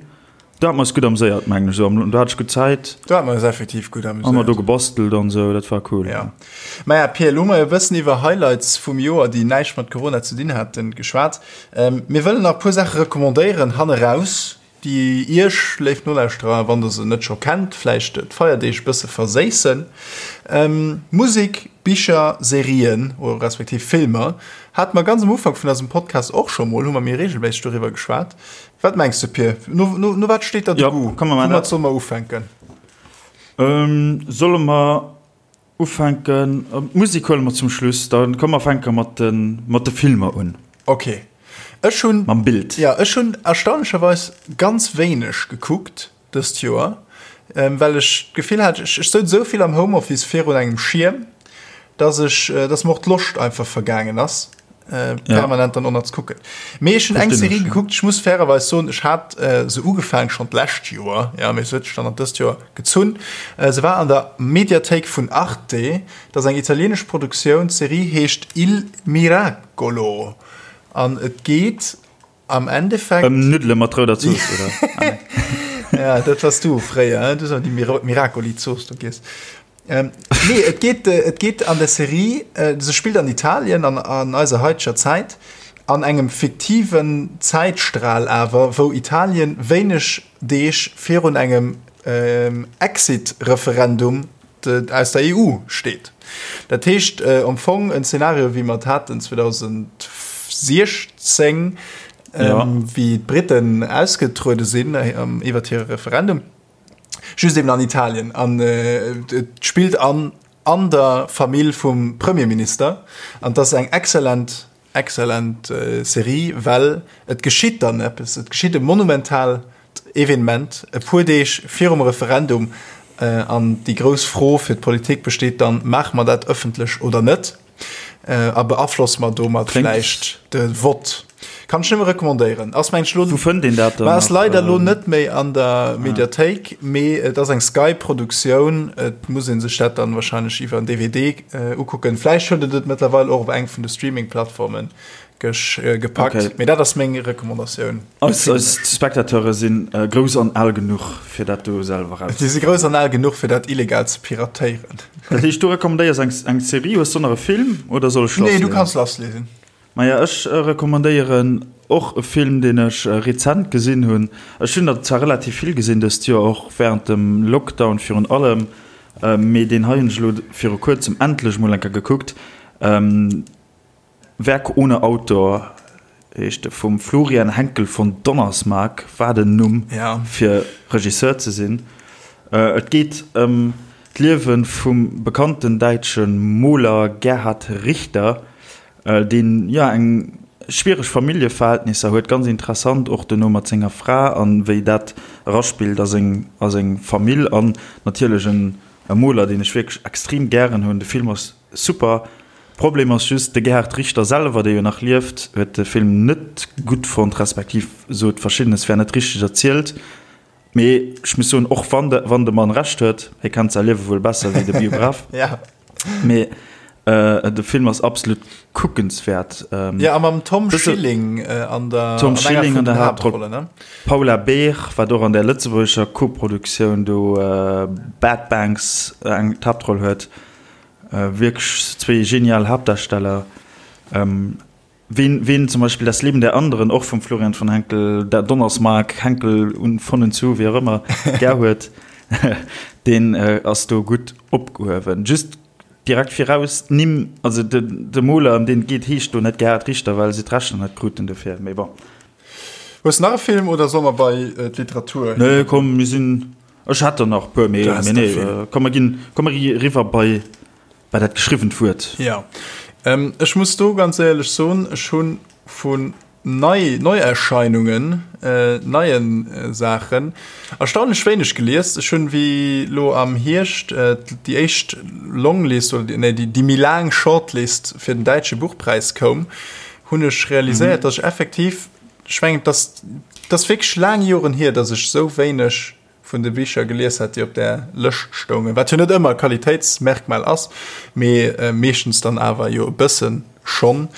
Do hat mer eis gutt amséiert, mengen ech. Do hat ech gutt Zäit. Do hat mer eis effektiv gutt amüséiert. Hu mer do gebastelt an esou, dat war cool. Ja. Maja, Pir, elo hu mer jo e bëssen iwwer Highlights vum Joer, déi näischt mat Corona ze dinn haten, geschwat. Mir wëllen nach e puer Saache recommandéieren hanneraus, déi Iech, léif Nolauschterer, wann Der se net scho kennt, vläicht d'Feierdeeg e bësse verséissen. Musek. Bicher, Serien oder respektiv Filmer. Hate mer ganz am Ufank vun eisem Podcast och scho mol, hu mer méi reegelméisseg doriwwer geschwat. Wat mengs de, Pir? No, no, no wat steet der de Ja, Goût? komm, mer maachen Woumat dat. solle mer ufänken? Solle mer ufänken? D'Musek huele mer zum Schluss. Da komm mer fänke mat de, mat de Filmer un. Ok. Ech hunn. Mam Bild. Ja, ech hunn erstaunlecherweis ganz wéineg gekuckt. dëst Joer, well ech d'Gefill hat, ech souz esou vill am Homeoffice virun engem Schierm, dass ech, dass mer och d'Loscht einfach vergaangen ass, permanent dann och nach ze kucken. Mee ech hunn eng Serie gekuckt, ech muss fairerweis soen, ech hat se ugefaang schonn d'lescht Joer, jo, mee se huet sech dann an dëst Joer gezunn. Se war an der Mediathéik vun Arte, dat ass eng italienesch Produktioun, d'Serie heescht Il Miracolo an et geet Am Endeffekt. Ëm Nuddele mat rouder Zooss, oder? Ah, nee. Ja, dat wars du fréier, hein? Du hues ëmmer déi Miracoli-Zooss do giess. Ähm, nee, et geet, äh, et geet an der Serie, äh, se spillt an Italien an, an eiser haiteger Zäit, an engem fiktiven Zäitstral awer, wou Italien wéineg Deeg virun engem ähm, Exit-Referendum aus der EU steet. Dat heescht am Fong en Szenario wéi mer et haten 2016, wéi d'Briten ausgetruede sinn iwwert hire Referendum, just eben an Italien. An et spillt an an der Famill vum Premierminister. An et ass eng exzellent Excellent Serie, well et geschitt dann eppes, et geschitt e monumentaalt Evenement e puer Deeg virum Referendum an déi grouss Fro fir d'Politik besteet dann, maache mer dat ëffentlech oder net a beaflosse mer domat vläicht de Vott? Kann ech nëmme recommandéieren. Ass mengen ech lo, Wou fënnt een dat dann ass leider lo net méi an der Mediathéik, mee et ass eng Sky-Produktioun, et muss ee sech dat dann wahrscheinlech iwwer en DVD Ukucken. Vläicht huet et et mëttlerweil och op eng vun de Streaming-Plattforme gepackt. Okay. Mee dat ass meng Recommandatioun. Eis, eis Spectateure sinn grouss an al genuch, fir dat do selwer raus. Si si grouss an al genuch, fir dat illegal ze piratéieren. Dat heescht, du recommandéiers eng, eng Serie. Hues du nach e Film oder soll ech lassleeën? Nee, du kanns lassleeën. Maja, ech recommandéieren och e Film, deen ech rezent gesinn hunn. Ech hunn der zwar relativ vill gesinn dëst Joer, och wärend dem Lockdown virun allem. Mee deen hei hunn ech elo viru kuerzem endlech mol eng Kéier gekuckt. Werk ohne Autor heescht e vum Florian Henckel von Donnersmarck, wat en Numm fir Regisseur ze sinn. Et geet ëm d'Liewe vum bekannten däitsche Moler Gerhard Richter, deen jo eng schwiereg Familljeverhältnisser huet, ganz interessant och duerno mat senger Fra an wéi dat eraspillt a seng a seng Famill an natierlech en e Moler deen ech wierklech extrem gären hunn. De Film ass super. Problem ass just, de Gerhard Richter selwer, dee jo nach lieft, huet de Film net gutt fonnt, respektiv sot verschiddenes wär net richteg erzielt. Mee ech muss soen, och wann de, wann de Mann Recht huet, hie kennt säi Liewe wuel besser wéi de Biograf. Ja. Mee äh, de Film ass absolut kuckenswäert. Ähm, ja, a mam Tom Schilling äh, an der, Tom Schilling an der Haaptroll. Ne? Paula Beer, wat och an der lëtzebuergescher Koproduktioun do äh, Bad Banks äh, eng d'Haaptroll huet. Äh, wierklech zwee genial Haaptdarsteller. Ähm, Ween, ween zum Beispill Das Leben der Anderen, och vum Florian von Henckel, der Donnersmarck, Henckel und von und zu, wéi och ëmmer, gär huet, deen ass do gutt opgehuewen. Just direkt viraus, d'Nimm, also de, de Moler, ëm deen et geet, heescht do net Gerhard Richter, well se d'Rechter net kruten dofir, mee bon. Hues nach e Film oder solle mer bei d'Literatur? Nee, komm, mir sinn, ech hätt der nach e puer, mee, mee nee, komm, mer ginn, komm, mer gi eriwwer bei. Bei dat geschriwwent Wuert. Jo, ech muss do ganz éierlech soen, ech hu vun nei Neierscheinungen, neie Saachen erstaunlech wéineg gelies. Ech hunn, wéi lo am Hierscht déi éischt Longlist oder nee, déi méi laang Shortlist fir den däitsche Buchpräis koum, hunn ech realiséiert, datt ech effektiv, ech mengen, et ass, et ass wierklech laang Joren hier, datt ech esou wéineg vun de Bicher gelies hat, déi op där Lëscht stoungen, wat jo net ëmmer e Qualitéitsmerkmal ass, mee meeschtens dann awer jo e bëssen schonn,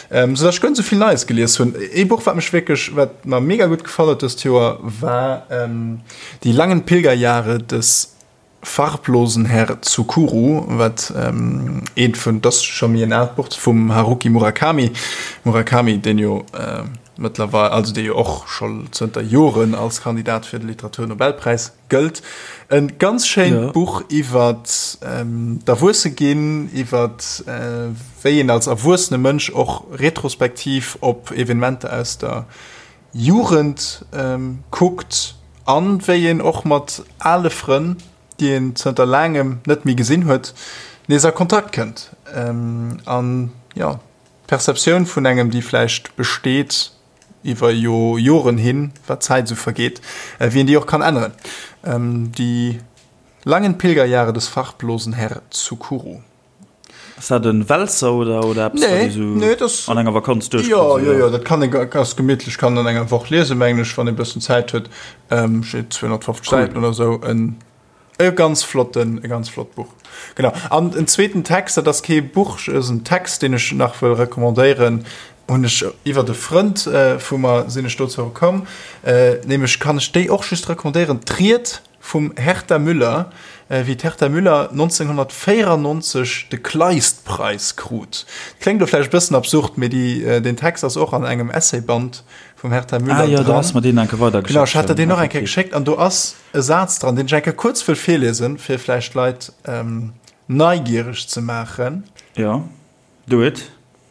sou datt ech guer net sou vill Neies gelies hunn. Ee Buch, wat mech wierklech, wat mer mega gutt gefall huet dëst Joer, war Die langen Pilgerjahre des farblosen Herr Tsukuru, wat eent vun, dat ass scho méi en aalt Buch, vum Haruki Murakami, Murakami, deen jo. mëttlerweil, also dee jo och scho zënter Joren als Kandidat fir de Literaturnobelpräis gëllt. E ganz schéint Buch iwwer d'Erwuesseginn, iwwer wéi een als erwuessene Mënsch och retrospektiv op Evenementer aus der Jugend kuckt an wéi een och mat ale Frënn, déi een zënter laangem net méi gesinn huet, nees a Kontakt kënnt. An jo, d'Perceptioun vun engem, déi vläicht besteet iwwer jo Joren hin, wat d'Zäit esou vergeet, wéi een déi och kann änneren. Die langen Pilgerjahre des farblosen Herr Tsukuru. Ass dat en Wälzer oder oder eppes wat ee sou an enger Vakanz duerchkritt? Jo, jo, jo, dat kann ee ganz gemittlech, kann an enger Woch liesen, mengen ech, wann ee bëssen Zäit huet. Steet 250 Säiten oder sou. En e ganz flotten, e ganz flott Buch. Genau. An en zweeten Text, dat ass kee Buch, ass en Text, deen ech nach wëll recommandéieren, hunn ech iwwert e Frënd vu mer sinn ech dozou komm, nämlech kann ech déi och just recommandéieren, D'Ried Vum Herta Müller, wéi d'Herta Müller 1994 de Kleist-Preis krut. Kléngt elo vläicht e bëssen absurd, mee déi, deen Text ass och an engem Essayband vum Herta Müller dran. Ah jo, du has mer deen eng Kéier weidergeschéckt. Genau, ech hat der deen och eng Kéier geschéckt an do ass e Saz dran, deen ech eng Kéier kuerz wëll virliesen, fir vläicht d'Leit neigiereg ze maachen. Jo, do it.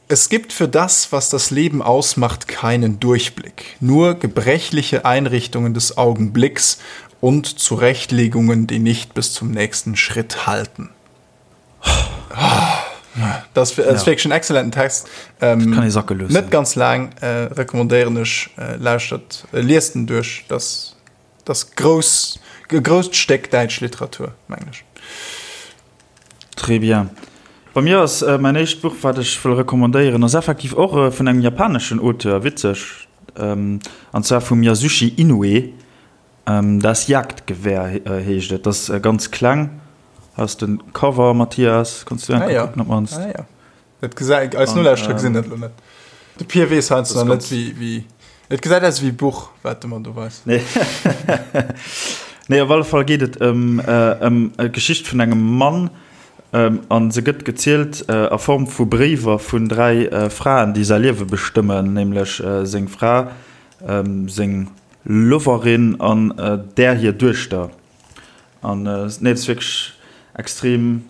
Es gibt für das, was das Leben ausmacht, keinen Durchblick, nur gebrechliche Einrichtungen des Augenblicks und Zurechtlegungen, die nicht bis zum nächsten Schritt halten. Das ass wierklech en excellenten Text. Ähm, kann ee sacke loossen. Net ganz laang, äh, recommandéieren ech, äh, lauschtert, äh, liest en duerch. Das, das grouss, e grousst Stéck däitsch Literatur, mengen ech. Très bien. Bei mir ass mäin éischt Buch, wat ech wëll recommandéieren, ass effektiv och vun engem japaneschen Auteur, witzeg, an zwar vum Yasushi Inoue. Das Jagdgewehr heescht et. Dat ass ganz kleng. Hei ass de Cover, Mathias, kanns du eng Kéier kucken op d'mannst. Ah jo. Dat gesäit, eis Nolauschterer gesinn dat elo net. De Pir weess heiansdo nach net, wéi, wéi, et gesäit aus wéi e Buch, wat de mer do weist. Nee. Nee, op alle Fall geet et ëm, ëm d'Geschicht vun engem Mann, an se gëtt gezielt a Form vu Bréiwer vun 3 Fraen, déi säi Liewe bestëmmen, nämlech seng Fra, seng Loverin an där hir Duechter. An nee, et ass wierklech extrem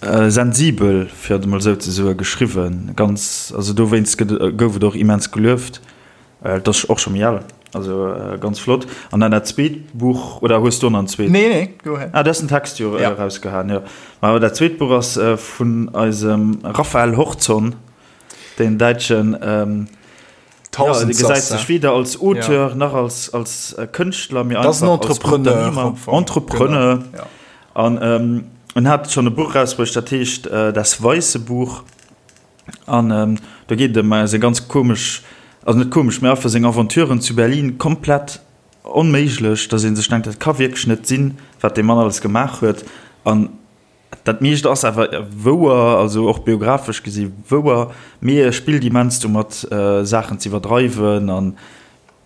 sensibel, fir et emol esou ze soen, geschriwwen. Ganz, also dowéinst gëtt, gouf et och immens gelueft. Et ass och scho méi al, also ganz flott. An dann dat zweet Buch, oder hues du och nach en zweet? Nee, nee, go ahead. Ah, du has den Text jo erausgehaen, jo. Ma dat zweet Buch ass vun eisem Raphael Horzon, deen däitschen Ja, de gesäit sech weder als Auteur nach als, als Kënschtler, mee einfach als Unternehmer, Entrepreneur. An en hat schonn e Buch erausbruecht, dat heescht Das weiße Buch. An do geet et ëm seng ganz komesch, also net komesch, mee einfach seng Aventuren zu Berlin, komplett onméiglech, datt ee sech denkt, dat ka wierklech net sinn, wat dee Mann alles gemaach huet. An Dat meescht ass awer wouer, also och biographesch gesi wouer, mee e spillt immens domat, Saachen ze iwwerdreiwen an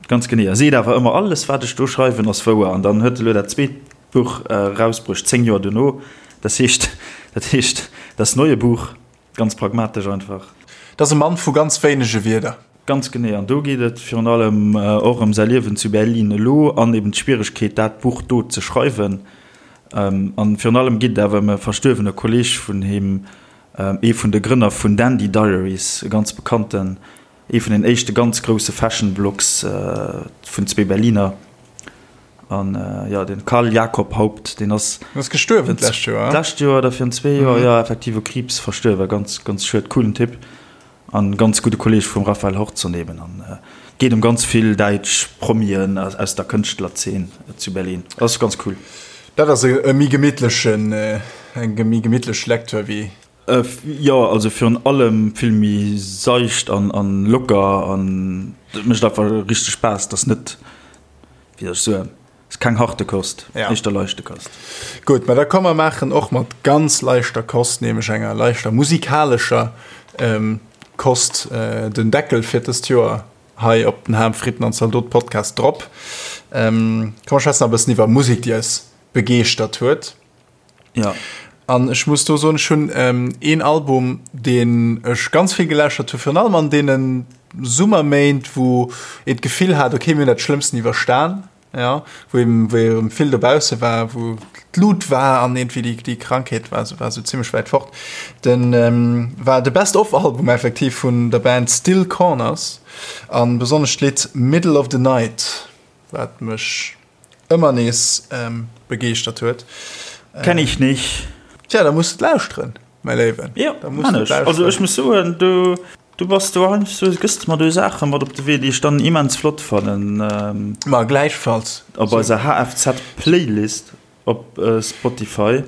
ganz genee. E seet awer ëmmer, alles wat ech do schreiwen ass wouer. An dann huet e lo dat zweet Buch erausbruecht, 10 Joer dono, das heescht, dat heescht Das neue Buch, ganz pragmatesch einfach. Dat ass e Mann vu ganz wéinege Wierder. Ganz genee, an do geet et virun allem och ëm säi Liewen zu Berlin elo an eben d'Schwieregkeet, dat Buch do ze schreiwen. An virun allem geet et awer ëm e verstuerwene Kolleeg vun him, ee vun de Grënner vun Dandy Diaries, e ganz bekannten, ee vun den éischte ganz grousse Fashion-Blogs vun zwee Berliner. An jo, den Karl Jakob Haupt, deen ass. Ass gestuerwen d'lescht Joer. D'lescht Joer oder virun zwee Joer, jo, effektiv u Kriibs verstuerwen. Ganz, ganz schued, coolen Typ. An ganz gudde Kolleg vum Raphael Horzon eben. An et geet em ganz vill däitsch Promien aus der Kënschtlerzeen zu Berlin. Ass ganz cool. Dat ass e méi gemittlechen, eng méi gemittlech Lecture wéi. Jo, also virun allem vill méi seicht an an locker an et mécht einfach richteg Spaass. Et ass net, wéi soll ech soen, Ass keng harte Kost, ja. éischter leichte Kost. Gutt, mä da komm mer maachen och mat ganz leichter Kost, nämlech enger leichter musikalescher ähm, Kost, äh, den Deckel fir dëst Joer hei op den Ham, Fritten an Zaldot Podcast drop. Ähm, komm mer schwätzen e bëssen iwwer Musek, déi eis begeeschtert huet. Ja. An ech muss do soen, ech hunn ähm, een Album, deen ech ganz vill geläuschert hu, virun allem an deenen. Summerméint, wou een d'Gefill hat, okay, mir hunn dat Schlëmmsten iwwerstan, jo, wou eben, wou erëm vill dobausse war, wou d'Lut war an iergendwéi déi, déi Krankheet war sou, war sou zimmlech wäit fort. Den war de Best of Album effektiv vun der Band Still Corners a besonnesch d'Lidd Middle of the Night, wat mech ëmmer nees begeeschtert huet. Kenn ich nicht. Tja, da muss du lauschteren, mäi Léiwen. Jo, man ech. Also ech muss soen, du, du bass do heiansdo, gëss de mer do Saache mat op de Wee, déi ech dann immens flott fannen. Ma gläichfalls. Op eiser HFZ-Playlist op Spotify,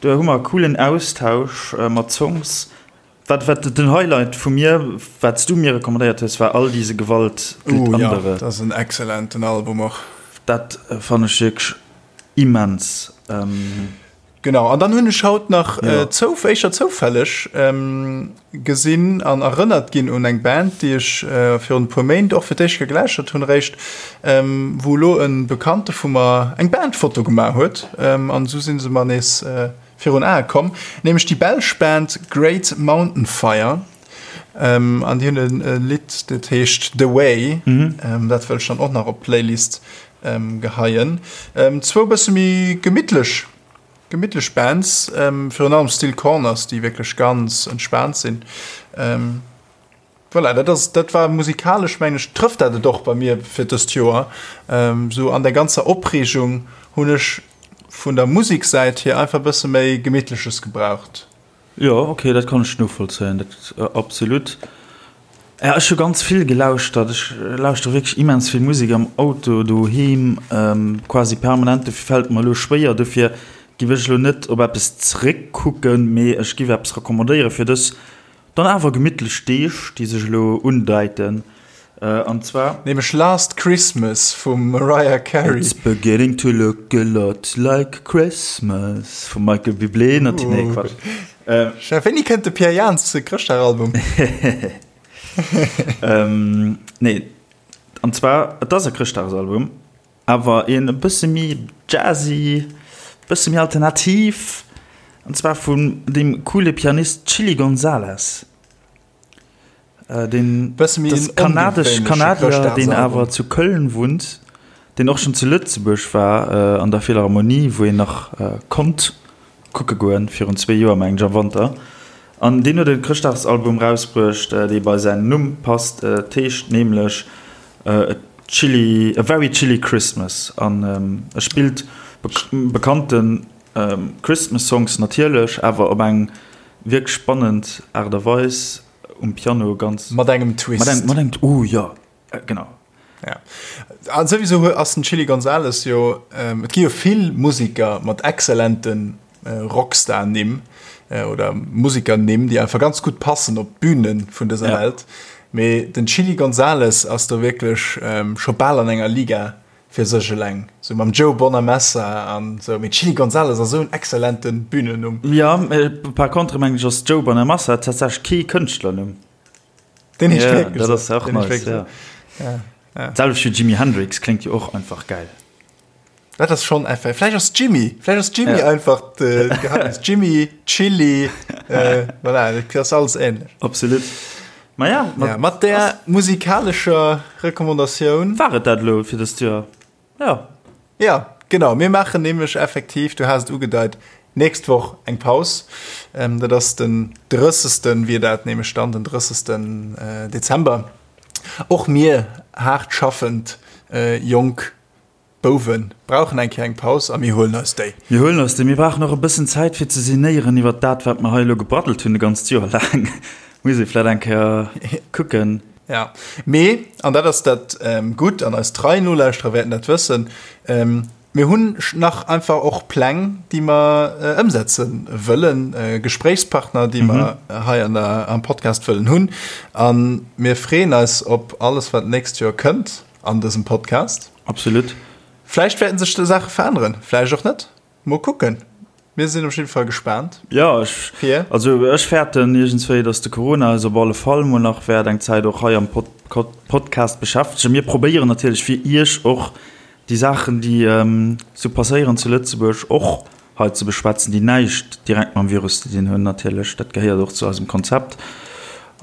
do hu mer e coolen Austausch mat Songs. Wat wat den Highlight vu mir, wat s du mir recommandéiert hues, war All diese Gewalt gilt Oh ja, andere. dat ass en excellenten Album och. Dat fannen ech wierklech immens. Genau, an dann hunn ech haut nach ja. zouf, éischter zoufälleg gesinn an erënnert ginn un eng Band, déi ech virun e puer Méint och fir d'éischt geläuschert hunn eréischt, wou elo e Bekannte vu mer eng Bandfoto gemaach huet an esou si se mer nees virun Ae komm, nämlech déi belsch Band Great Mountain Fire an déi hunn e Lidd, dat heescht The Way. Dat wëll ech dann och nach op d'Playlist geheien. Zwou bësse méi gemittlech, gemittlech Bands, virun allem Still Corners, déi wierklech ganz entspaant sinn. Voilà, dat ass, dat war musikalesch, mengen ech, trëfft dat et och bei mir fir dëst Joer. Sou an der ganzer Opreegung hunn ech vun der Musiksäit hier einfach e bësse méi Gemittleches gebraucht. Jo, ok, dat kann ech novollzéien, dat absolut. Ja, ech hu ganz vill gelauschtert. Ech lauschtere wierklech immens vill Musek am Auto, doheem, quasi permanent. Dofir fält et mer elo schwéier. Dofir giff ech elo net op eppes zeréckkucken, mee ech giff eppes recommandéiere fir dës Dann awer gemittlech Deeg, déi sech elo undeiten, an zwar. Nämlech Last Christmas vum Mariah Carey. It's beginning to look a lot like Christmas vum Michael Bublé, nati nee Quatsch. Chef, wéini kënnt de Pierre Jans Chrëschtdagalbum? Nee, an zwar, et ass e Chrëschtdagsalbum, Awer een e bësse méi jazzy, bësse méi alternativ, an zwar vun deem coole Pianist Chilly Gonzales. Deen Bësse méi das en kanadesch ongewéinleche Kanadier, deen awer Chrëschtdagsalbum. zu Köln wunnt, deen och schonn zu Lëtzebuerg war, an der Philharmonie, wou een nach konnt kucke goen, virun zwee Joer mengen ech am Wanter. An deen huet e Chrëschtdagsalbum rausbruecht, dee bei säin Numm passt. Et heescht nämlech A Chilly, A Very Chilly Christmas an e spillt bekannte Christmas Songs natierlech, awer op eng wierklech spannend Aart a Weis um Piano, ganz. Mat engem Twist. Mat engem, oh jo, genau. Ja. An souwisou ass den Chilly Gonzales jo, et gi jo vill Musiker mat exzellente Rockstar-Nimm oder Musiker-Nimm, déi einfach ganz gutt passen op d'Bühne vun dëser ja. Welt. Mee den Chilly Gonzales ass do wierklech scho bal an enger Liga fir sech eleng. Sou mam Joe Bonamassa an sou. Mee Chilly Gonzales ass esou en exzellente Bühnennumm. Ja, par contre mengen ech ass Joe Bonamassa tatsächlech kee Kënschtlernumm. Den heescht ja, dat ass och nice, ja. Ja, ja. Selwecht wéi Jimi Hendrix kléngt jo och einfach geil. Dat ass schon einfach. Vläicht ass Jimmy, vläicht ass Jimmy ja. einfach de Geheimnis. Jimmy, Chili, äh, voilà, dat ass alles ähnlech. Absolut. Ma ja, mat, ja, mat der musikalescher Recommandatioun. War et dat lo fir dëst Joer? Ja. Ja, genau. Mir maachen nämlech effektiv, du has et ugedeit, nächst Woch eng Paus. Ähm, dat ass den 30. wier dat nämlech dann, den 30. Äh, Dezember. Och mir haart schaffend äh, jonk Bouwe brauchen eng Kéier eng Paus a mir huelen eis déi. Mir huelen eis déi. Mir brauchen och e bëssen Zäit fir ze sinéieren iwwert dat, wat mer hei elo gebraddelt hunn e ganzt Joer laang. Muss ee vläicht eng Kéier kucken. Ja, mee, an dat ass dat Gutt, an eis trei Nolauschterer wäerten dat wëssen, mir hunn nach einfach och Pläng, déi mer ëmsetze wëllen, Gespréichspartner, déi mer hei an der, am Podcast wëllen hunn. A mir freeën eis op alles, wat d'nächst Joer kënnt an dësem Podcast. Absolut. Vläicht wäerten sech do Saache veränneren, vläicht och net. Mol kucken. Mir sinn op jidde Fall gespaant. Jo, ech, Fir? also ech fäerten iergendswéi, dass de Corona eis op alle Fall mol nach wäert eng Zäit och hei am Pod Podcast beschäftegen. Mir probéieren natierlech fir Iech och déi Saachen, déi sou passéieren zu Lëtzebuerg, och hei ze beschwätzen, déi näischt direkt mam Virus ze dinn hunn natierlech. Dat gehéiert och zu eisem Konzept.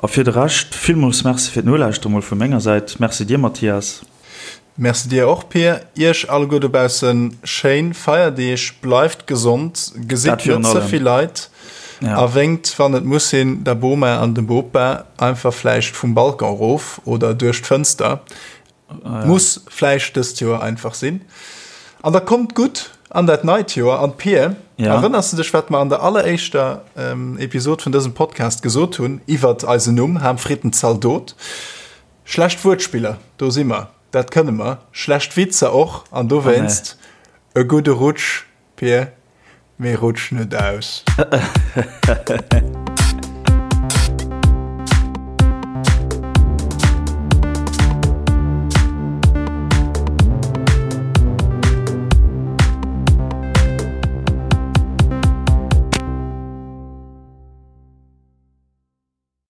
A fir de Rescht, villmools Merci fir d'Nolauschteren mol vu menger Säit. Merci dir, Mathias. Merci dir och, Pir. Iech alleguer dobaussen schéin Feierdeeg, bleift gesond, gesitt net ze vill Leit a wénkt, wann et muss sinn, der Boma an dem Bopa einfach vläicht vum Balcon erof oder duerch d'Fënster. Muss vläicht dëst Joer einfach sinn. An da kommt gutt an dat neit Joer. An Pir, erënners de dech, wat mer an der alleréischter Episod vun dësem Podcast gesot hunn iwwert eisen Numm, Ham Fritten Zaldot? Schlecht Wuertspiller, do si mer, dat kënne mer. Schlecht Witzer och. An dowéinst e gudde Rutsch, Pir, mee rutsch net aus.